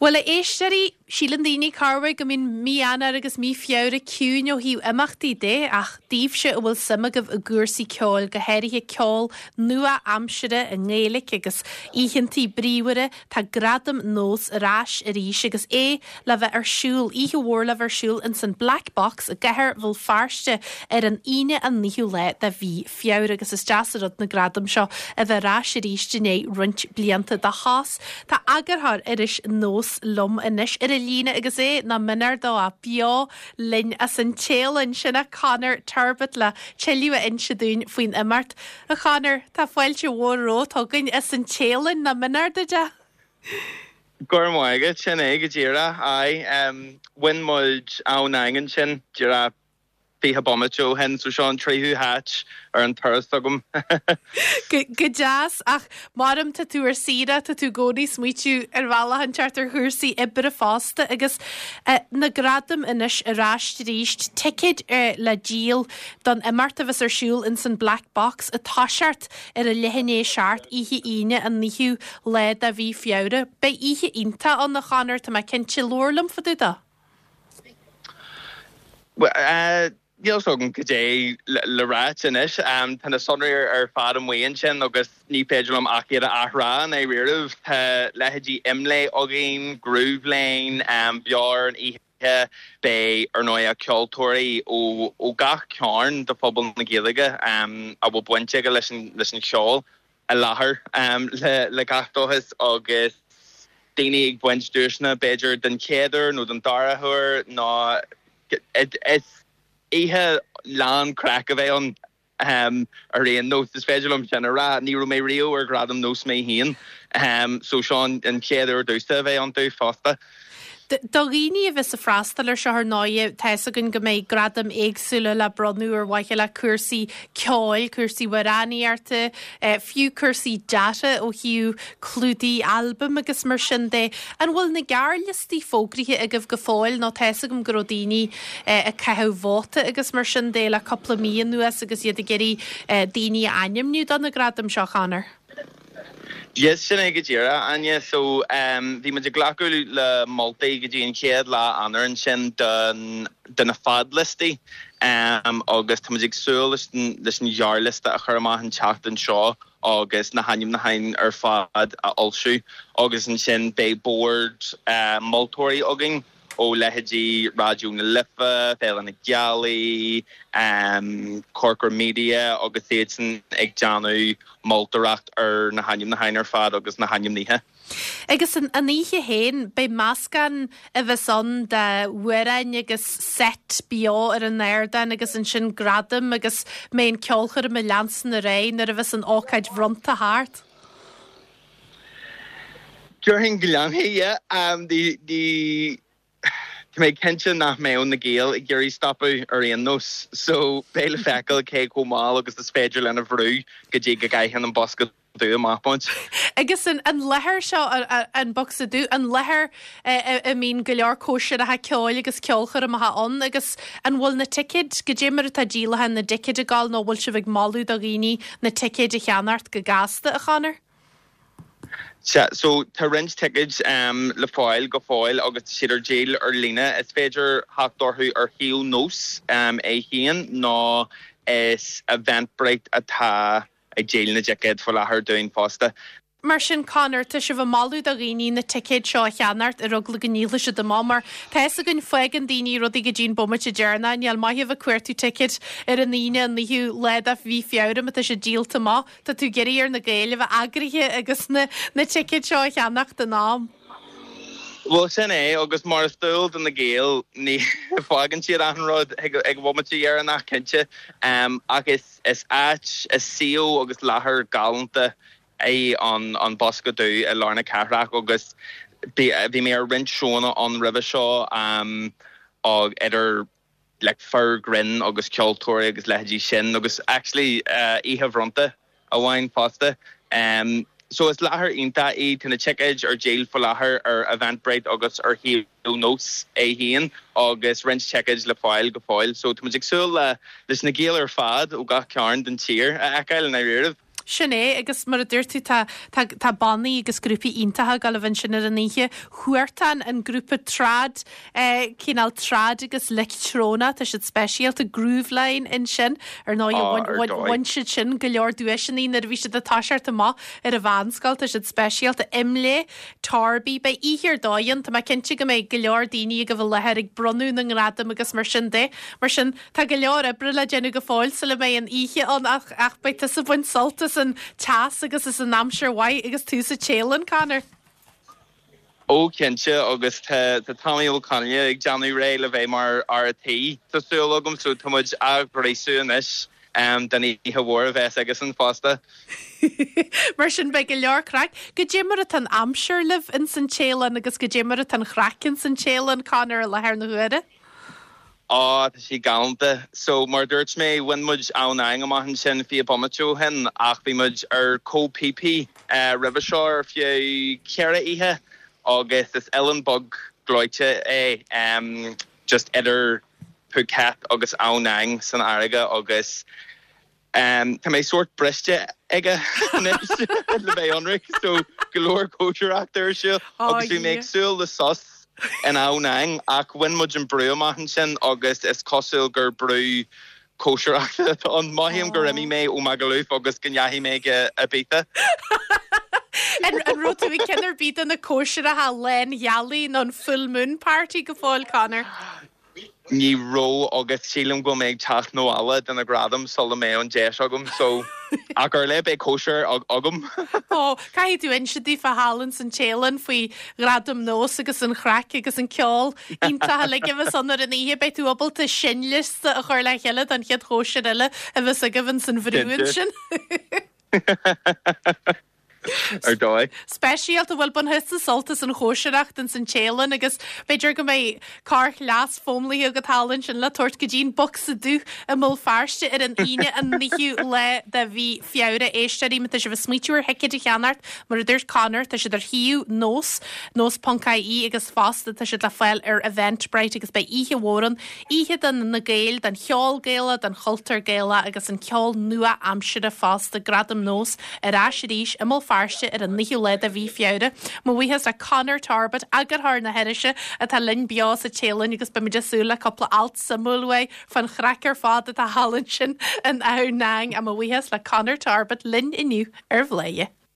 Bhuel, a éisteoirí, síleann daoine corruair go mbíonn mí Eanáir agus mí Feabhra ciúin ó thaobh imeachtaí de, ach daoibhse a bhfuil suim agaibh i gcúrsaí ceoil, go háirithe ceol nua-aimsire i nGaeilic agus oícheantaí bríomhara, tá Gradaim Nós ar ais arís agus é le bheith ar siúl, oíche mhór le bheith ar siúl ins an Black Box i gCathair Bhéal Feirste ar an Aoine an 9ú lá de mhí Feabhra agus is deas an rud na gradaim seo a bheith ar ais arís i ndiaidh roinnt blianta de shos. Tá eagarthóir iris Nós liom anois ar an líne agus é nach mionair dó ach beo linn as an Téalainn, sin é Conor Turbitt le tuilleadh a inse dúinn faoin imeacht. A Chonor, tá fáilte mhór romhat chugainn as an Téalainn, nach mionair duit é? Go raibh maith agat, sin é go díreach, aye. Bhain muid Ao Nang ansin díreach 20 bomaite ó shin, so seo an tríú háit ar an turas agam. Go deas, ach maram tá tú ar saoire, tá tú i gcónaí ag smaoitiú ar bhealach inteacht ar chúrsaí oibre fosta agus na gradaim anois ar ais arís, ticéid le díol don imeacht a bheas ar siúl ins an Black Box ag toiseacht ar a leath i ndiaidh a 7 oíche Aoine an 9ú lá de mhí Feabhra. Beidh oíche iontach ann a Chonor, tá mé cinnte, labhair liom fá dtaobh de. Bhuel, níl 's agam cad é le ráit anois. Tá na sonraí ar fad amuigh ansin agus ní féidir liom ach iad a athrá i ndáiríribh. Tá leithéidí Imlé againn, Groovelane, beo ar an oíche. Beidh, ar ndóigh, ceoltóirí ó gach cearn de phobal na Gaeilge a bhfuil baint aige leis an cheol. i láthair le gach dóchas agus daoine ag baint duaiseanna b'fhéidir den chéad uair nó den dara huair nó is oíche lán craic a bheidh ann ar aon nós, is féidir liom sin a rá. Ní raibh mé riamh ar Ghradaim Nós mé féin so seo an chéad uair domhsa a bheith iontu fosta. Do dhaoine a bheas ag freastal ar seo ar ndóighe, tá fhios againn go mbeidh gradaim éagsúla le bronnadh ar mhaithe le cúrsaí ceoil, cúrsaí amhránaíochta, fiú cúrsaí deartha ó thaobh clúdaigh albaim agus mar sin de. An bhfuil na gearrliostaí fógraithe agaibh go fóill nó tá fhios agam go raibh daoine ag caitheamh vóta agus mar sin de le cúpla mí anuas agus iad ag iarraidh daoine a ainmniú do na gradaim seo, Conor? Yes, sin é go díreach, Áine. So, bhí muid ag glacadh le moltaí go dtí an chéad lá Eanáir ansin don, do na fadliostaí agus tá muid ag súil leis an, leis an ghearrliosta a chur amach an tseachtain seo agus na hainmniúcháin ar fad a fhoilsiú agus ansin beidh bord moltóirí againn. ó leithéidí Raidió na Life, Féile na Gealaí, Corcra Media agus iadsan ag déanamh moltóireacht ar na hainmniúcháin ar fad agus na hainmnithe. Agus an oíche féin, beidh meascán a bheas ann d'amhráin agus seit beo ar an ardán agus ansin gradaim agus mbeidh an ceolchoirm ag leanstan ar aghaidh nuair a bheas an ócáid bhronnta thart. Déarfainn go leanfaidh, yeah. Ní, tá mé cinnte nach mbeadh na Gaeil ag iarraidh stopadh ar aon nós, so beidh le feiceáil cé chomh mall agus is féidir linn a bhrú go dtí go gcaitheann an bosca dubh amach muid. Agus an láthair seo, an Bocsa Dubh, an láthair a mbíonn go leor cóisireacha ceoil agus ceolchoirmeacha ann agus an bhfuil na ticéid, goidé mar atá díolachán na dticéid ag dul nó an bhfuil sibh ag moladh do dhaoine na ticéid a cheannacht go gasta, a Chonor? Sea, so tá roinnt ticéid le fáil go fóill agus tá siad ar díol ar líne. Is féidir theacht orthu ar shuíomh Nós é féin nó is Eventbrite atá ag díol na dticéad faoi láthair dúinn fosta. Mar sin, Conor, tá sibh ag moladh do dhaoine na ticéid seo a cheannacht ar eagla go ndíolfaidh siad amach mar tá fhios againn fágann daoine rudaí go dtí an bomaite deireanach. Níl maith a bheith ag cuartú ticéid ar an Aoine an 9ú lá de mhí Feabhra má tá siad díolta amach. Tá tú ag iarraidh ar na Gaeil a bheith eagraithe agus na na ticéid seo a cheannacht in am. Bhuel, sin é, agus mar is dual do na Gaeil, ní fágann siad achan rud ag an bhomaite dheireanach, cinnte. Ach is is áit, is suíomh agus láthair galánta é an Bosca Dubh i lár na cathrach agus bhí mé ar roinnt seóanna ann roimhe seo, idir like fir grinn agus ceoltóirí agus leithéidí sin agus actually oíche bhronnta amháin fosta. So is láthair iontach í, tá na ticéid ar díol faoi láthair ar Eventbrite agus ar shuíomh Nós é féin agus roinnt ticéid le fáil go fóill. So tá muid ag súil le leis na Gaeil ar fad ó gach cearn den tír a fheiceáil i ndáiríribh. Sin é, agus mar a dúirt tú, tá, tá, tá bannaí agus grúpaí iontacha ag dul a bheith ansin ar an oíche. Huartan, an grúpa trad, eh, cineál trad agus leictreonach, tá siad speisialta, Grooveline ansin, ar ndóigh, Á, bhain, ar bhain, dóigh. bhain siad sin go leor duaiseanna nuair a bhí siad ag toiseacht amach ar an mheánscoil, tá siad speisialta. Imlé, Torby, beidh oíche ar dóigh ann, tá mé cinnte go mbeidh go leor daoine ag a bheith i láthair ag bronnadh na ngradam agus mar sin de. Mar sin, Tá go leor oibre le déanamh go fóill sula mbeidh an oíche ann ach ach beidh tusa ag baint sult as an teas agus as an aimsir mhaith agus tú sa Téalainn, Conor. Ó cinnte agus tá tá Tommy Ó Conghaile ag déanamh réidh le bheith mar fhear a' tí, tá súil agam, so tá muid á ghríosú anois don oíche mhór a bheas aigesan fosta. Mar sin beidh go leor craic. Goidé mar atá an aimsir libh ins an Téalainn agus goidé mar atá an chraic ins an Téalainn, Conor, i láthair na huaire? Á, tá sí galánta. So, mar a dúirt mé, bhain muid Ao Nang amach ansin 20 bomaite ó shin ach bhí muid ar Koh Phi Phi roimhe seo ar feadh ceithre oíche agus is oileán beag gleoite é just idir Phuket agus Ao Nang san fharraige agus Tá mé sórt briste aige anois le bheith ionraic, so go leor cóisireachta ar siúl agus bhí mé ag súil le sos in Ao Nang ach bhain muid an brú amach ansin agus is cosúil gur brú cóisireachta atá ann. Mothaím gur imigh mé ó Magaluf agus go ndeachaigh mé go Ibiza. An raibh tú ag ceann ar bith de na cóisireacha lánghealaí nó an full moon party go fóill, Conor? Ní raibh agus sílim go bhfuil mé ag teacht 'na bhaile do na gradaim sula mbeidh an deis agam so ach ar leith beidh cóisir agam. Ó, caithfidh tú inse daofa thall ins an Téalainn faoi Ghradaim Nós agus an chraic agus an ceol iontach uilig a bheas ann ar an oíche. Beidh tú ábalta seinnliosta a chur le chéile don chéad chóisir eile a bheas agaibh ins an bhrú ansin. Ar dóigh. Speisialta, bhuel, bainfidh tusa sult as an chóisireacht ins an Téalainn agus b'fhéidir go mbeidh corrchleas foghlamtha agat thall ansin le tabhairt go dtí an Bocsa Dubh i mBéal Feirste ar an Aoine an 9ú lá de mhí Feabhra. Éisteoirí, má tá sibh ag smaoitiú ar thicéid a cheannacht, mar a dúirt Conor, tá siad ar shuíomh Nós, nós.ie agus fosta tá siad le fáil ar Eventbrite agus beidh oíche mhór ann Oíche do na Gaeil, don cheol Gaelach, don chultúr Gaelach agus an ceol nua-aimsire fosta. Gradaim Nós ar ais arís i mBéal Feirste ar an 9ú lá de mhí Feabhra. Mo bhuíochas le Conor Torbett, eagarthóir na hirise, atá linn beo sa Téalainn agus beimid ag súil le cúpla alt suimiúil uaidh fán chraic ar fad atá thall ansin in Ao Nang. Mo bhuíochas le Conor Torbett linn inniu ar Bhladhaire.